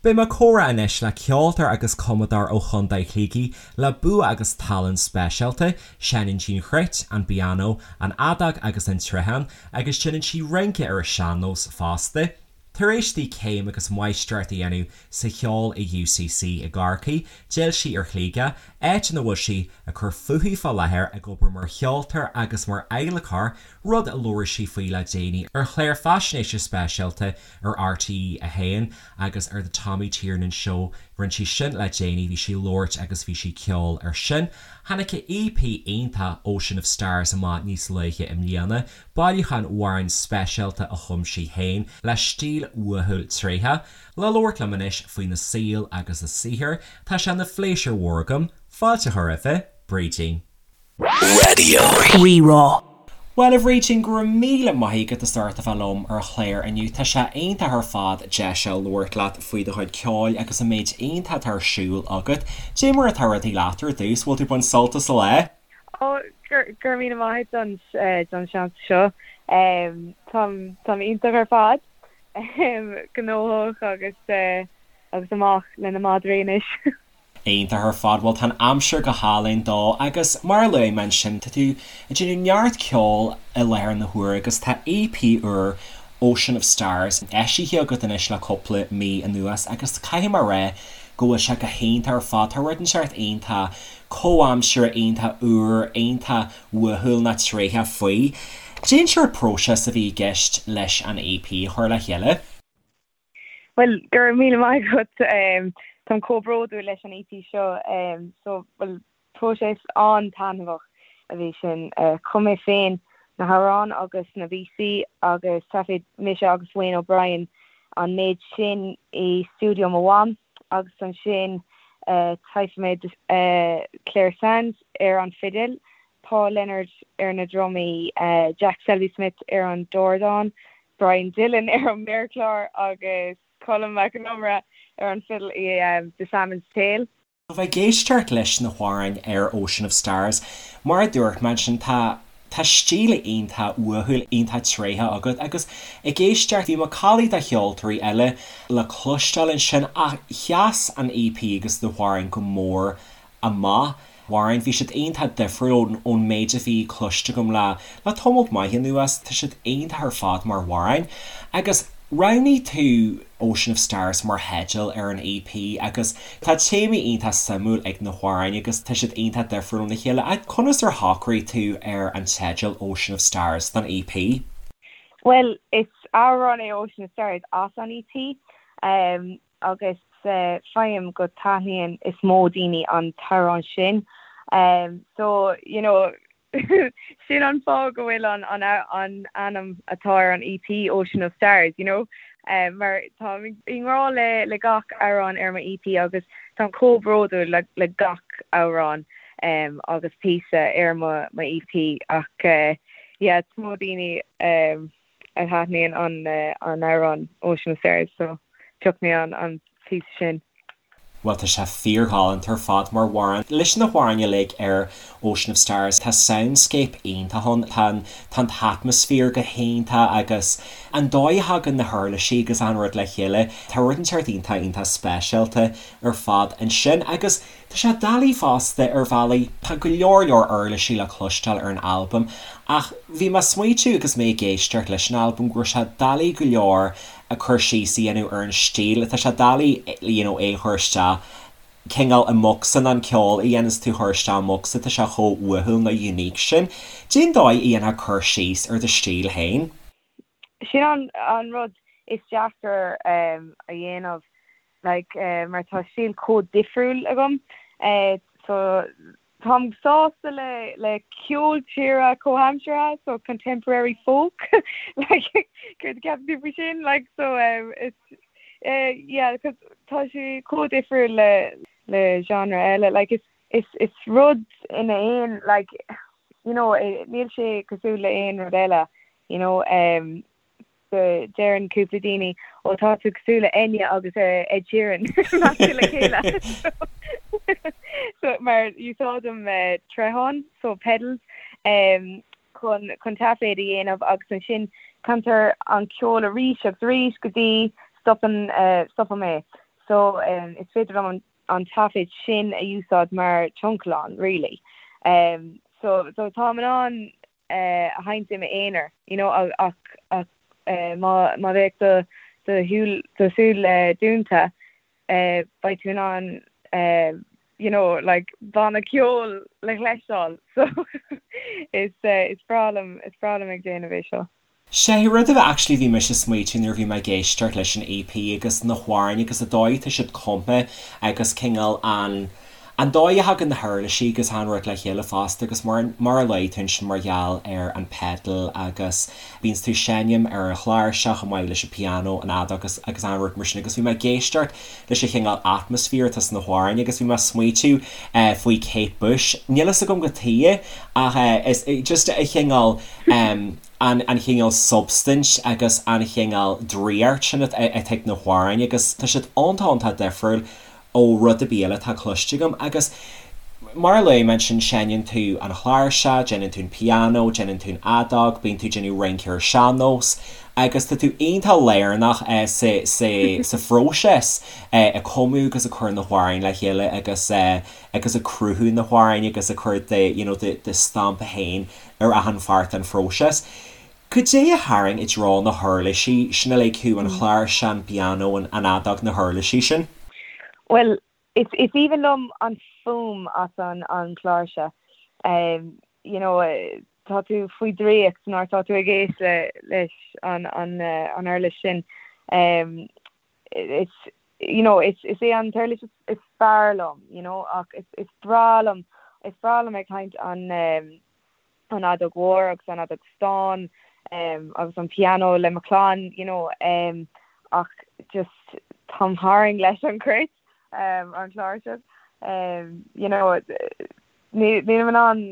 Beidh mé ag comhrá anois le ceoltóir agus cumadóir ó Chontae Shligigh le bua agus tallann speisialta, seinneann sí an chruit, an pianó, an fheadóg agus an troitheán agus déanann sí rince ar an sean-nós fosta. Tar éis di céim agus máistreacht a dhéanamh sa cheol i UCC i gCorcaigh, d'fhill sí ar Shligeach, áit ina bhfuil sí ag cur fúithi fá láthair ag obair mar cheoltóir agus mar adhlacóir, rud a labhair sí faoi le déanaí ar chlár faisnéise speisialta ar RTÉ 1 agus ar The Tommy Tiernan Show. Rinne sí sin le déanaí, bhí sí ag labhairt agus bhí sí ag ceol ar sin. Tháinig a EP iontach Ocean of Stars amach níos luaithe i mbliana, bailiúchán amhrán speisialta a chum sí féin le stíl uathúil tréitheach. Le labhairt liom anois faoina saol agus a saothar, tá sé ina phléisiúr mhór agam fáilte a chur roimhe, Brídín. Raidió Rí-Rá. Bhuel, a Bhrídín, go raibh míle maith agat as ucht a bheith liom ar an chlár inniu. Tá sé iontach ar fad deis a labhairt leat faoi do chuid ceoil agus an méid iontach atá ar siúl agat. Dé mar atá rudaí leat ar dtús, bhfuil tú ag baint sult as an lá? Ó, go raibh míle maith agat don seans seo. Táim iontach ar fad, gnóthach agus agus amach le na madraí anois. Iontach ar fad, bhuel tá an aimsir go hálainn dó agus mar a luaigh mé ansin tá tú ag déanamh neart ceoil i láthair na huaire agus tá EP úr Ocean of Stars eisithe agat anois le cúpla mí anuas agus caithfidh mé a rá go bhfuil sé go hiontach ar fad, tá rud inteacht iontach comhaimseartha, iontach úr, iontach uathúil ná tréitheach faoi. Cén sórt próiseas a bhí i gceist leis an EP a chur le chéile? Bhuel, go raibh míle maith agat. Táim chomh bródúil leis an EP seo. So, bhuel, próiseas an-taitneamhach a bhí sin. Chum mé féin na hamhráin agus na píosaí agus thaifead mise agus Wayne O'Brien an méid sin i stiúideo mo mham agus ansin thaifead mé Clare Sands ar an fidil, Paul Leonard ar na drumaí, Jack Selby Smith ar an dordán, Brian Dillon ar an méarchlár agus Colm Mac Con Iomaire ar an fidil i The Salmon's Tale. Bheith ag éisteacht leis na hamhráin ar Ocean of Stars, mar a dúirt mé ansin, tá tá stíl iontach uathúil, iontach tréitheach agat agus ag éisteacht, bhí macallaí de cheoltóirí eile le cloisteáil ansin ach sheas an EP agus na hamhráin go mór amach. Amhráin, bhí siad iontach difriúil ón méid a bhí cloiste agam le le tamall maith anuas. Tá siad iontach ar fad mar amhráin. Agus roghnaigh tú Ocean of Stars mar theideal ar an EP agus tá téamaí iontach suimiúil ag na hamhráin agus tá siad iontach difriúil óna chéile. Ach conas ar shocraigh tú ar an teideal Ocean of Stars don EP? Bhuel, is amhrán é Ocean of Stars as an EP. Agus faighim go taitníonn is mó daoine an t-amhrán sin. So, you know, sin an fáth go bhfuil an an an ainm atá ar an EP, Ocean of Stars, you know. Mar táim i ngrá le le gach amhrán ar mo EP agus táim chomh bródúil le le gach amhrán agus píosa ar mo mo EP ach yeah, is mó daoine a thaitníonn an amhrán Ocean of Stars so phioc mé an píosa sin. Bhuel tá sé fíorghalánta ar fad mar amhrán. Leis na hamhráin uilig ar Ocean of Stars tá soundscape iontach ann, tá an tá an t-atmaisféar go hiontach agus an dóigh a thagann na huirlisí agus an rud le chéile, tá rud inteacht iontach iontach speisialta ar fad ansin agus Tá sé doiligh fosta ar bhealaí, tá go leor leor uirlisí le cloisteáil ar an albam ach bhí mé ag smaoitiú agus mé ag éisteacht leis an albam go raibh sé doiligh go leor cur síos a dhéanamh ar an stíl, tá sé doiligh you know é a chur isteach cineál i mbocsa nó an ceol a dhéananns tú a chur isteach i mbocsa, tá sé chomh uathúil nó unique sin. Cén dóigh a dhéanfá cur síos ar do stíl féin? Sin an an rud is deacair a dhéanamh like mar tá stíl chomh difriúil agam so táim sásta le le ceol tíre comhaimseartha so contemporary folk like céard a cheapann tú faoi sin like so it's yeah cause tá sé chomh difriúil le le genre eile like is is is rud ina aon like you know níl sé cosúil le aon rud eile you know um deireann cúpla daoine ó tá tú cosúil le Enya agus Ed Sheeran measctha le chéile so mar úsáidim troitheáin so pedals um chun chun taiféad a dhéanamh agus ansin cantar an ceol arís agus arís go dtí stopann uh stopaim é. So is féidir liom an taifead sin a úsáid mar tioncalán really. So so táim in ann a sheinnt i m'aonar you know ach ach má má bheadh do do shúil do súil dúnta beidh tú in ann you know like banna ceoil le chloisteáil so is is breá liom is breá liom ag déanamh é seo. Sé rud a actually bhí mise ag smaoitiú nuair a bhí mé ag éisteacht leis an EP agus na hamhráin agus an dóigh atá siad cumtha agus cineál an an dóigh a thagann na huirlisí agus an rud le chéile fosta agus mar mar a luaigh tú ansin mar gheall ar an pedal agus bíonns tú ag seinm ar an chláirseach chomh maith leis an piano an fheadóg agus agus an rud mar sin agus bhí mé ag éisteacht leis an chineál atmaisféar atá sna hamhráin agus bhí mé ag smaoitiú faoi Kate Bush níl fhios agam cad chuige ach is just a chineál an chineál substaint agus an chineál draíocht sin atá ag na hamhráin agus tá siad iontach iontach difriúil ó rud ar bith eile atá cloiste agam agus mar a luaigh mé ansin seinneann tú an chláirseach, déanann tú an pianó, déanann tú an fheadóg, bíonn tú ag déanamh rince ar sean-nós agus tá tú iontach lárnach sa sa sa phróiseas ag cumadh agus ag cur na hamhráin le chéile agus agus ag cruthú na hamhráin agus ag cur do you know do do stampa féin ar achan pháirt den phróiseas. Cad é a tharraing i dtreo na huirlisí sin uilig thú, an chláirseach, an pianó, an fheadóg, na huirlisí sin? Bhuel, is aoibhinn liom an fuaim as an chláirseach. You know, tá tú faoi draíocht nuair atá tú ag éist leis an uirlis sin. Is, you know, is é an t-uirlis is fearr liom, you know, ach is breá liom, is breá liom ag seinnt an, an fheadóg mhór agus an fheadóg stáin agus an pianó le mo chlann you know ach just táim tharraing leis an cruit an chláirseach you know nílim in ann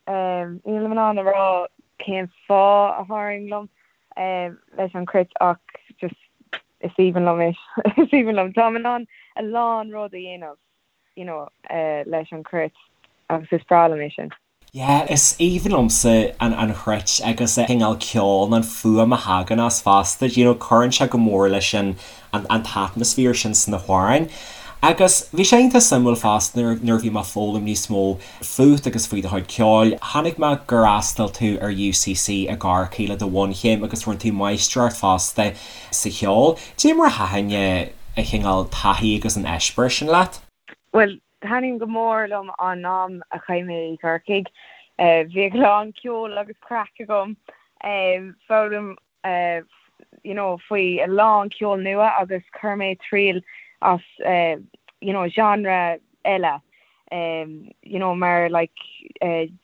nílim in ann a rá cén fáth a tharraing liom leis an cruit ach just is aoibhinn liom é is aoibhinn liom táim in ann a lán rud a dhéanamh you know leis an cruit agus is breá liom é sin. Yeah, is aoibhinn liomsa an an chruit agus an cineál ceoil nó an fuaim a thagann as fosta, you know, cuireann sé go mór leis an an an t-atmaisféar sin sna hamhráin. Agus bhí sé iontach suimiúil fosta nuair nuair a bhí mé ag foghlaim níos mó fút agus faoi do chuid ceoil, chonaic mé gur fhreastail tú ar UCC i gCorcaigh le do bhunchéim agus rinne tú máistreacht fosta sa cheol. Cad é mar a thaitin an chineál taithí agus an eispéireas sin leat? Bhuel, Thaithin go mór liom an am a chaith mé i gCorcaigh. Bhí a lán ceoil agus craic agam. Foghlaim you know faoi a lán ceol nua agus chuir mé triail as you know genre eile you know mar like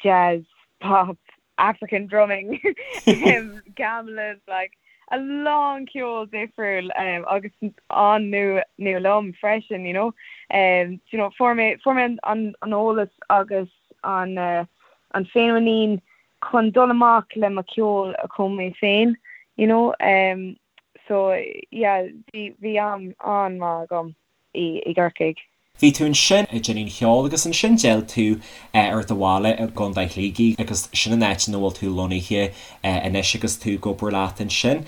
jazz, pop, African drumming, gamelan, like a lán ceol difriúil agus an-nua liom freisin, you know. You know, fuair mé fuair mé an an eolas agus an an féinmhuinín chun dul amach le mo cheol a chum mé féin, you know. So yeah, bhí bhí am an-mhaith agam i i gCorcaigh. Bhí tú ansin ag déanamh an cheoil agus ansin d'fhill tú ar do bhaile i gContae Shligigh agus sin an áit ina bhfuil tú lonnaithe anois agus tú ag obair leat ansin.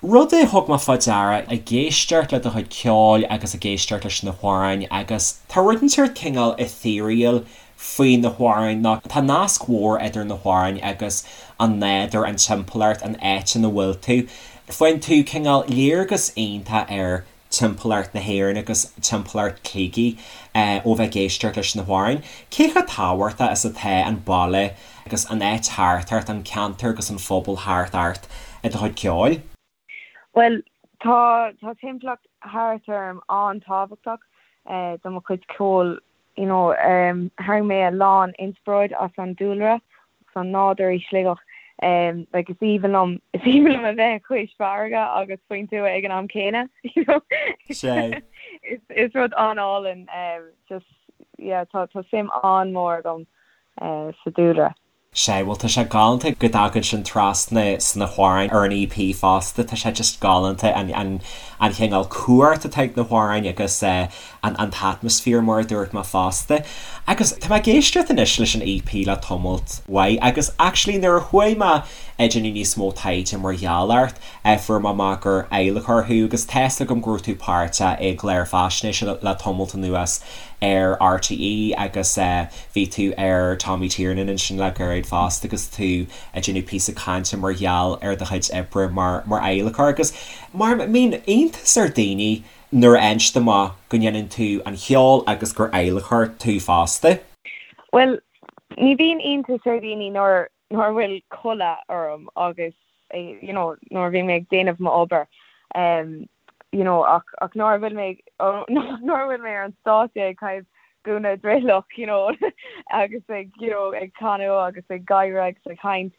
Rud a thug mé fá deara ag éisteacht le do chuid ceoil agus ag éisteacht leis na hamhráin agus tá rud inteacht cineál ethereal faoi na hamhráin ná tá nasc mhór idir na hamhráin agus an nádúr, an timpeallacht, an áit ina bhfuil tú. Faigheann tú cineál léargas iontach ar timpeallacht na hÉireann agus timpeallacht Shligigh ó bheith ag éisteacht leis na hamhráin. Cé chomh tábhachtach is atá an baile agus an áit thart ort, an ceantar agus an phobal thart ort i do chuid ceoil? Bhuel, tá tá timpeallacht thart orm an-tábhachtach do mo chuid ceoil. You know, tharraing mé a lán inspioráid as an dúlra agus an nádúr i Sligeach. Like is aoibhinn liom, is aoibhinn liom a bheith cois farraige agus faoin tuath ag an am céanna, you know. Sea. Is, is rud an-álainn, just, yeah, tá, tá suim an-mhór agam sa dúlra. Sea, bhuel tá sé galánta go dtagann sin trasna sna hamhráin ar an EP fosta, tá sé just galánta an an an chineál cumhacht atá ag na hamhráin agus an an t-atmaisféar mar a dúirt mé fosta. Agus tá mé ag éisteacht anois leis an EP le tamalt mhaith agus actually nuair a chuaigh mé ag déanamh níos mó taighde mar gheall ort, fuair mé amach gur adhlacóir thú agus tá's agam go raibh tú páirteach i gclár faisnéise le tamalt anuas ar RTÉ agus bhí tú ar Tommy Tiernan ansin le gairid fosta agus tú ag déanamh píosa cainte mar gheall ar do chuid oibre mar mar adhlacóir agus mar mbíonn iontas ar daoine nuair a fhaigheann siad amach go ndéanann tú an cheol agus gur adhlacóir tú fosta. Bhuel, ní bhíonn iontas ar dhaoine nuair nuair a bhfuil culaith orm agus you know nuair a bhíonn mé ag déanamh m'obair um you know ach ach nuair a bhfuil mé nuair a bhfuil mé ar an stáitse ag caitheamh gúna drithleach you know agus ag you know ag canadh agus ag gáire agus ag caint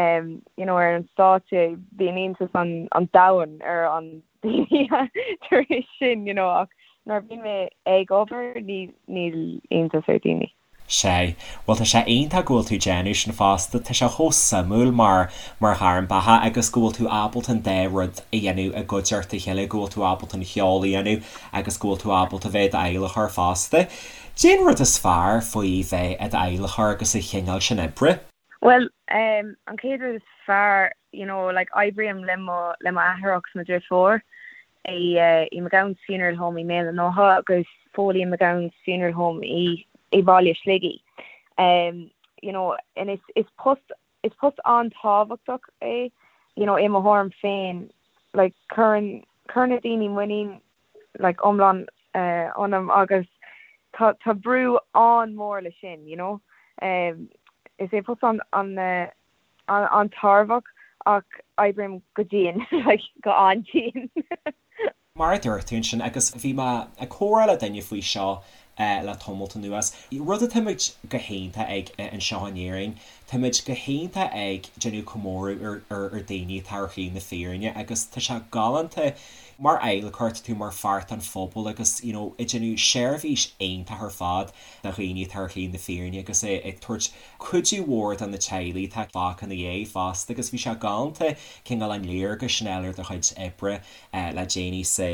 um you know ar an stáitse bíonn iontas an an domhain ar an daoine tar éis sin you know ach nuair a bhíonn mé ag obair ní níl iontas ar daoine. Sea. Bhuel tá sé iontach go bhfuil tú déanamh sin fosta, tá sé chomh suimiúil mar mar ghairm beatha agus go bhfuil tú ábalta an dá rud a dhéanamh i gcuideachta a chéile, go bhfuil tú ábalta an cheol a dhéanamh agus go bhfuil tú ábalta bheith i d'adhlacóir fosta. Cén rud is fearr faoi bheith i d'adhlacóir agus an chineál sin oibre? Bhuel, an chéad rud is fearr, you know, like oibrím le mo le mo athair agus mo dhriofúr i i McGowan's Funeral Home i mBéal an Átha agus Foley and McGowan's Funeral Home i i Baile Shligigh. Um, you know, and is is post is post an-tábhachtach é, you know, i mo thuairim féin, like cuireann cuireann na daoine muinín like iomlán uh, ionam agus tá tá brú an-mhór le sin, you know. Um, is é post an an uh, an-tairbheach ach oibrím go dian, like go an-dian. Mar a dúirt tú ansin, agus bhí mé ag comhrá le duine faoi seo le tamalt anuas, rud atáimid go hiontach ag anseo in Éirinn, táimid go hiontach ag déanamh comóradh ar ar daoine atá ar shlí na fírinne agus tá sé galánta mar adhlacóir, tá tú mar pháirt den phobal agus you know ag déanamh seirbhís iontach ar fad do dhaoine atá ar shlí na fírinne agus ag tabhairt cuidiú mhór do na teaghlaigh atá fágtha ina dhiaidh fosta agus bhí sé galánta cineál an léargas sin a fháil ar do chuid oibre le déanaí sa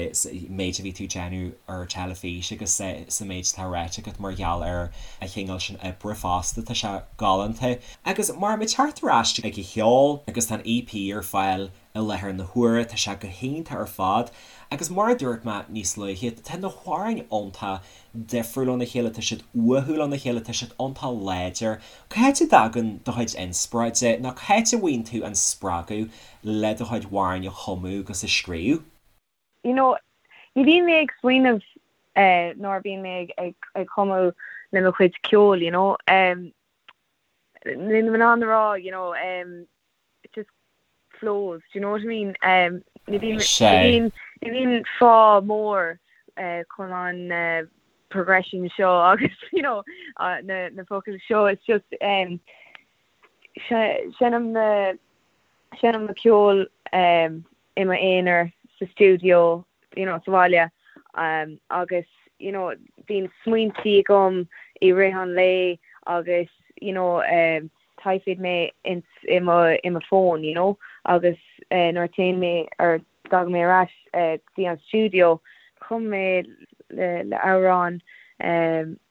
méid a bhí tú ag déanamh ar teilifís agus sa méid atá ráite agat mar gheall ar an chineál sin oibre fosta. Tá sé galánta. Agus mar muid teacht ar ais ag an cheol agus tá an EP ar fáil i láthair na huaire, tá sé go hiontach ar fad agus mar a dúirt mé níos luaithe, tá na hamhráin iontach difriúil óna chéile, tá siad uathúil óna chéile, tá siad iontach láidir. Cá háit a dtagann do chuid inspioráide nó cá háit a bhfaigheann tú an spreagadh le do chuid amhráin a chumadh agus a scríobh? You know, ní bhíonn mé ag smaoineamh nuair a bhíonn mé ag cumadh le mo chuid ceoil, you know. Níl mé in ann a rá, you know, it just flows, do you know what I mean? Ní bhíonn, ní bhíonn, ní bhíonn fáth mór chun an progression seo agus, you know, na, na focail seo, it's just, seinnim na, seinnim na ceol i m'aonar sa stiúideo, you know, sa bhaile agus, you know, bíonn smaointí agam i rith an lae agus, you know, taifead mé ins i mo i mo fón, you know, agus nuair a téann mé or dtagann mé ar ais go dtí an stiúideo, chum mé le le amhrán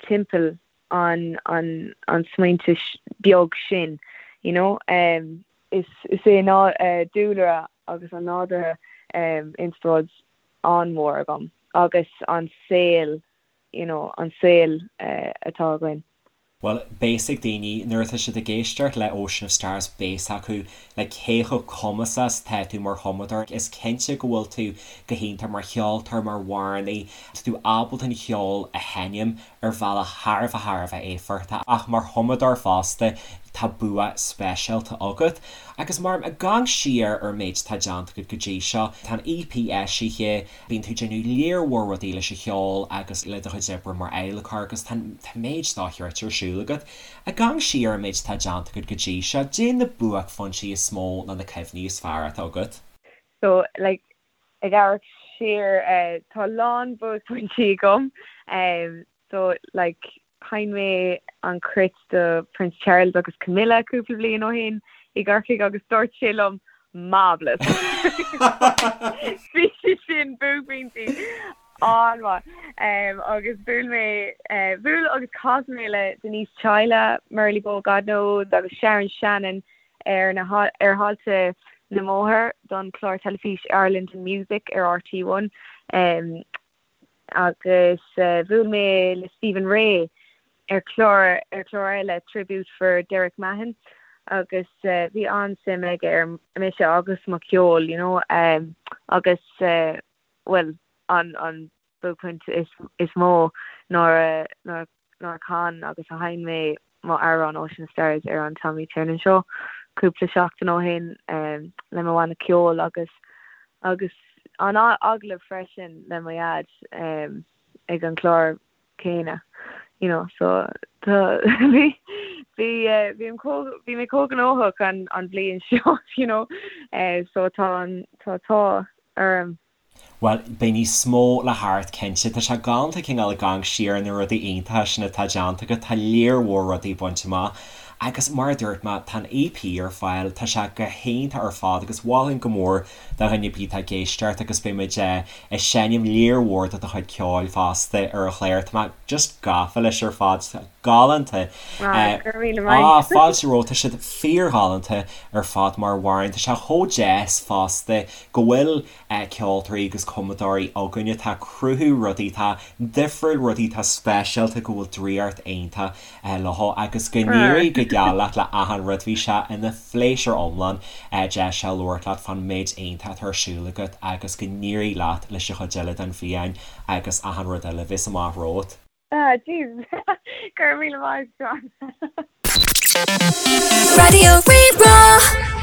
timpeall an an an smaointe beag sin, you know. Is é dúlra agus an nádúrtha inspioráid an-mhór agam agus an saol, you know, an saol atá againn. Bhuel, beidh a fhios ag daoine, nuair atá siad ag éisteacht le Ocean of Stars, beidh a fhios acu like cé chomh cumasach is atá tú mar chumadóir. Is cinnte go bhfuil tú go hiontach mar cheoltóir, mar amhránaí, tá tú ábalta an cheol a sheinm ar bhealach thar a bheith thar a bheith éifeachtach ach mar chumadóir fosta tá bua speisialta agat. Agus mar ag amharc siar ar an méid atá déanta agat go dtí seo, tá an EP eisithe, bíonn tú ag déanamh léar mhór rudaí leis an cheol agus le do chuid oibre mar adhlacóir agus tá an méid dochreidte ar siúl agat. Ag amharc siar ar an méid atá déanta agat go dtí seo, caidé na buaicphointí is mó nó na cuimhní is fearr atá agat? So, like, Ag amharc siar tá a lán buaicphointí agam so like. Sheinn mé an cruit do Prince Charles agus Camilla cúpla bliain ó shin i gCorcaigh agus dúirt sé liom Marvellous! Bhí sé sin buaicphointí an-mhaith. Agus bhuail mé, bhuail agus chas mé le Denise Chaila, Murley Bow God Knows agus Sharon Shannon ar na ar thailte na mBóthar don chlár teilifís Ireland in Music ar RTÉ One. Agus bhuail mé le Stephen Rea ar chlár ar chlár eile, Tribute for Derek Mahon, agus bhí an-suim aige ar mise agus mo cheol, you know, agus bhuel an an buaicphointe is is mó nuair a nuair nuair a chan agus a sheinn mé mo amhrán Ocean of Stars ar an Tommy Tiernan Show cúpla seachtain ó shin le mo bhanna ceoil agus agus an agallamh freisin le mo dhaid ag an chlár céanna you know so tá bhí bhí bhí an bhí mé chomh gnóthach an an bhliain seo you know so tá an tá tá orm. Bhuel, beidh níos mó le theacht, cinnte. Tá sé galánta cineál ag amharc siar ar na rudaí iontacha sin atá déanta agat, tá léar mhór rudaí bainte amach. Agus mar a dúirt mé, tá an EP ar fáil, tá sé go hiontach ar fad agus mholfainn go mór do dhuine ar bith atá ag éisteacht agus beidh muid ag seinm léar mhór de do chuid ceoil fosta ar an chlár. Tá mé just gafa leis ar fad, galánta. Ah, go raibh míle maith. Ah, fáilte romhat, tá siad fíorghalánta ar fad mar amhráin. Tá sé chomh deas fosta go bhfuil ceoltóirí agus cumadóirí againn atá ag cruthú rudaí atá difriúil, rudaí atá speisialta, go bhfuil draíocht iontach leo agus go n-éirí go geal leat le achan rud. Bhí sé ina phléisiúr iomlán deis a labhairt leat fán méid iontach atá ar siúl agat agus go n-éirí leat leis an chuid eile den bhliain agus achan rud eile a bheas amach romhat. Ah, jeez. Go raibh míle maith, John. Raidió Rí-Rá.